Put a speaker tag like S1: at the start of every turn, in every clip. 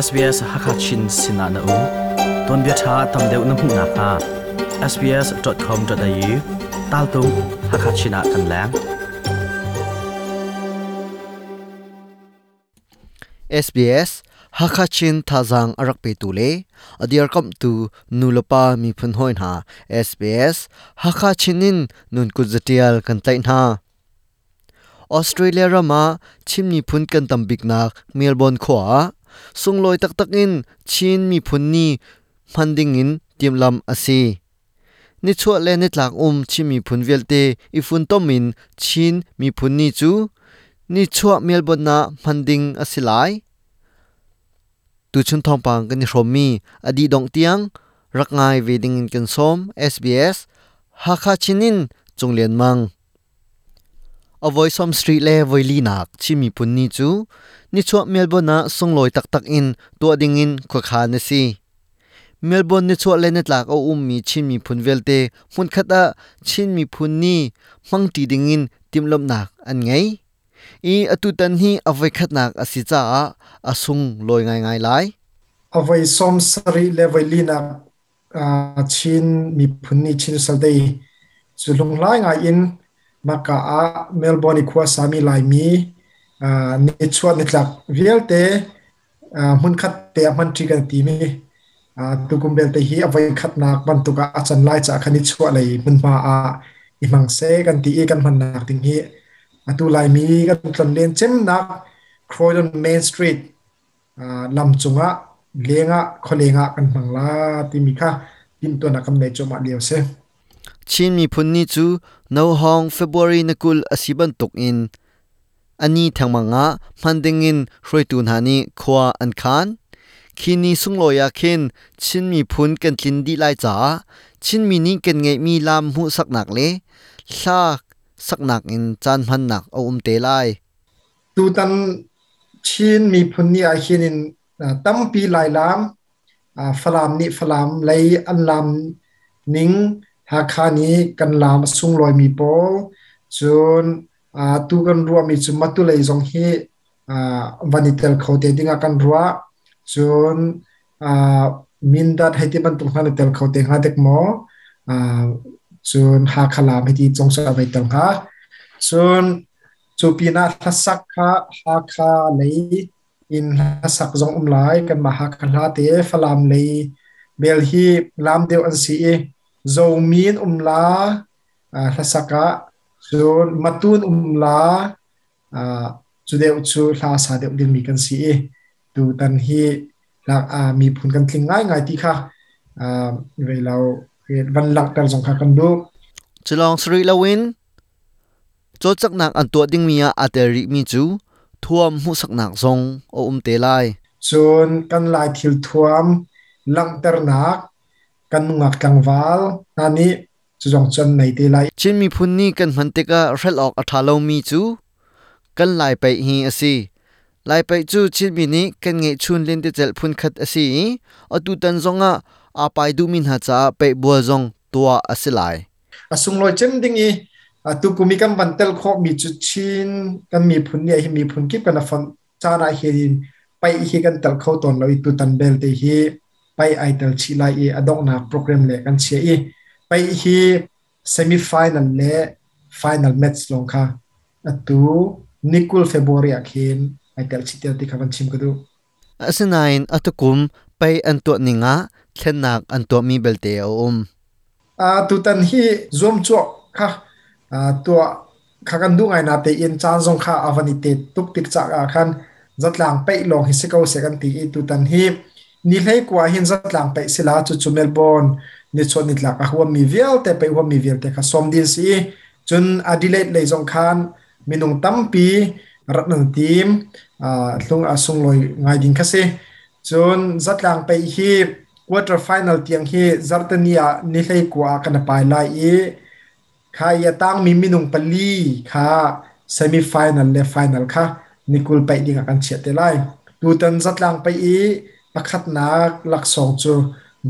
S1: SBS Hakachin sinah na um. Tuanbia ṭha tam deuh na hmuh nakhnga sbs.com.au taltung Hakachin ah kan leng.
S2: SBS Hakachin thazaang a rak petu le a dirkamhtu nulepa miphun hawi hna SBS Hakachin in nun kut zatial kan tlaih hna. Australia ram ah Chin miphun kan tam biknak Melbourne khua ah sunglawi taktak in Chin miphun ni hman ding in timhlamh a si. Nichuah le nitlak um Chin miphun vialte i funtom in Chin miphun ni cu nichuah Melbourne ah hman ding a si lai. Tuchun thawngpang kan i hrawmmi a dih dongh tiang rak ngai ve ding in kan sawm. SBS Hakha Chin in Cung Lian Mang. A voi som street le voi linak Chin miphun ni cu nichuah Melbourne ah sunglawi taktak in tuah dingin khuakhan a si. Melbourne nichuah le nitlak a ummi Chin miphun vialte hmunkhat ah Chin miphun ni hmangṭi dingin timhlamhnak an ngei. I atutan hi a voikhatnak a si caah a sunglawi ngaingai lai.
S3: A voi 70 le voi linak Chin miphun nih Chin Sal Day cu hlunghlai ngai in maka ah Melbourne i khua sami Laimi nichuah nitlak vialte hmunkhat te ah hmanṭi kan timi tukum belte hi a voikhatnak bantuk ah a can lai caah khan nichuah lei hmunhma ah i hmang seh kan ti i kan hmannak ding hi atu Laimi kan tlonlen cemnak Croydon Main Street lam cungah lengah khualeng ah kan hmang la timi kha timhtuahnak kan nei cuahmah lio si.
S2: Chin miphun ni cu Nohawng February na 20 a si bantuk in a ni thengmang ah hman dingin hruaitu hna nih khua an khan. Khi ni sunglawi ah khin Chin miphun kan tlin dih lai caah Chinmi nih kan ngeihmi lam hmuhsaknak le hla saknak in caan hmannak a um te lai.
S3: Tutan Chin miphun ni ahhin in tampi Lailam, Falam nih Falam lei an laam ning, Hakha nih kan laam a sunglawimi pawl, cun tu kan ruahmi cu Matu lei zong hi van i tel kho te dingah kan ruah. Cun Mindat hei ti bantuk hna na tel kho te hnga dek maw? Cun Hakha laam hei ti zong cu a vai tel hnga. Cun Cu pinah hlasak kha Hakha lei in hlasak zong um lai. Kanmah Hakha hla te Falam lei bel hi laam deuh an si i Zomi an um la hlasak ah cun Matun um la cu deuh cu hla sa deuh dingmi kan si i tutan hi miphun kan tling ngaingai ti kha vei lo van langhter zong kha kan duh.
S2: Culawng si rih loin Cawlcanghnak an tuah dingmi ah aa tel rihmi cu thuam hmuhsaknak zong a um te lai.
S3: Cun kan Lai thil thuam langhternak kan nungak tlangval hna nih cu zong cu an nei te lai.
S2: Chin miphun nih kan hman tikah hrelh awk a ṭha lomi cu kan Lai paih hi a si. Lai paih cu Chinmi nih kan ngeihchun lentecelh phunkhat a si i atutan zongah aa pai duhmi hna caah paih bual zong tuah a si lai.
S3: A sunglawi cem ding i tukum i kan van tel khawhmi cu Chin kan miphun nih hi miphun kip kan a fonh caan ah hin paih hi kan tel kho tawn lo i tutan belte hi paih ai tel chih lai i a donghnak program le kan chia i paih hi semi final le final match lawng kha atu nikul February ah khin ai tel chih tel ti kha van chim ka duh.
S2: Asinain atukum pei an tuah ning ah thlennak an tuahmi belte a um.
S3: Tutan hi zuamcawh kha tuah kha kan duh ngai natein caan zong kha a van i tet tuk tik caah khan zatlang paih lawng hi si ko seh kan ti i tutan hi ni 19 hin zatlang paih sila cucu Melbourne nichuah nitlak a huammi vialte paih huammi vialte kha sawm ding si i cun Adelaide lei zong khan minung tampi rat nan tim hlung a sunglawi ngai ding kha si. Cun zatlang paih hi quarter final tiang hi zarhteni ah ni 19 ah kan pai lai i kha i a tangmi minung pali kha semi final le final kha ni 20 paih ding ah kan chiah te lai. Tutan zatlang paih i pakhatnak laksawng cu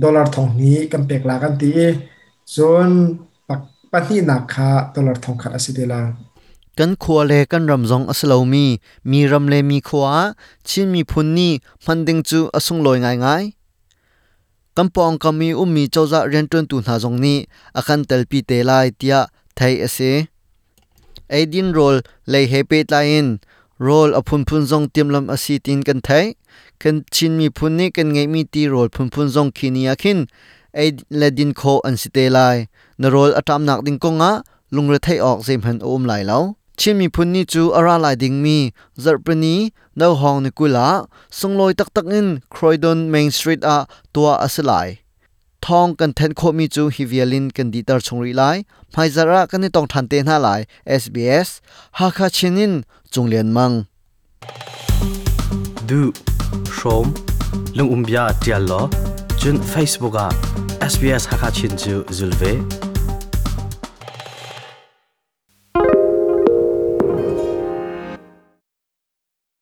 S3: dollar 2000 kan pek la kan ti i cun pahnihnak kha dollar 1000 a si te lai.
S2: Kan khua le kan ram zong a si lomi mi ram le mi khua ah Chin miphun ni hman ding cu a sunglawi ngaingai. Kan pawngkam i ummi cozah rianṭuantu hna zong nih a kan telpi te lai tiah theih a si. Eidin rawl lei he pehtlai in rawl a phunphun zong timhlamh a si tiin kan theih. Kan Chin miphun nih kan ngeihmi ti rawl phunphun zong khi ni ah khin ei le din khawh an si te lai. Na rawl a ṭamnak ding kongah lungretheih awk zeihmanh a um lai lo. Chin miphun ni cu a ra lai dingmi zarhpini nohawng ni 20 ah sunglawi taktak in Croydon Main Street ah tuah a si lai. Thawng kan thenh khawhmi cu hi vial in kan dihter chung rih lai. Hmaizarh ah kan i tong ṭhan te hna lai. SBS Hakha Chin in Cung Lian Mang.
S1: Duh, hrawm, lungumbia ṭial law, cun Facebook ah SBS Hakha Chin cu zul ve.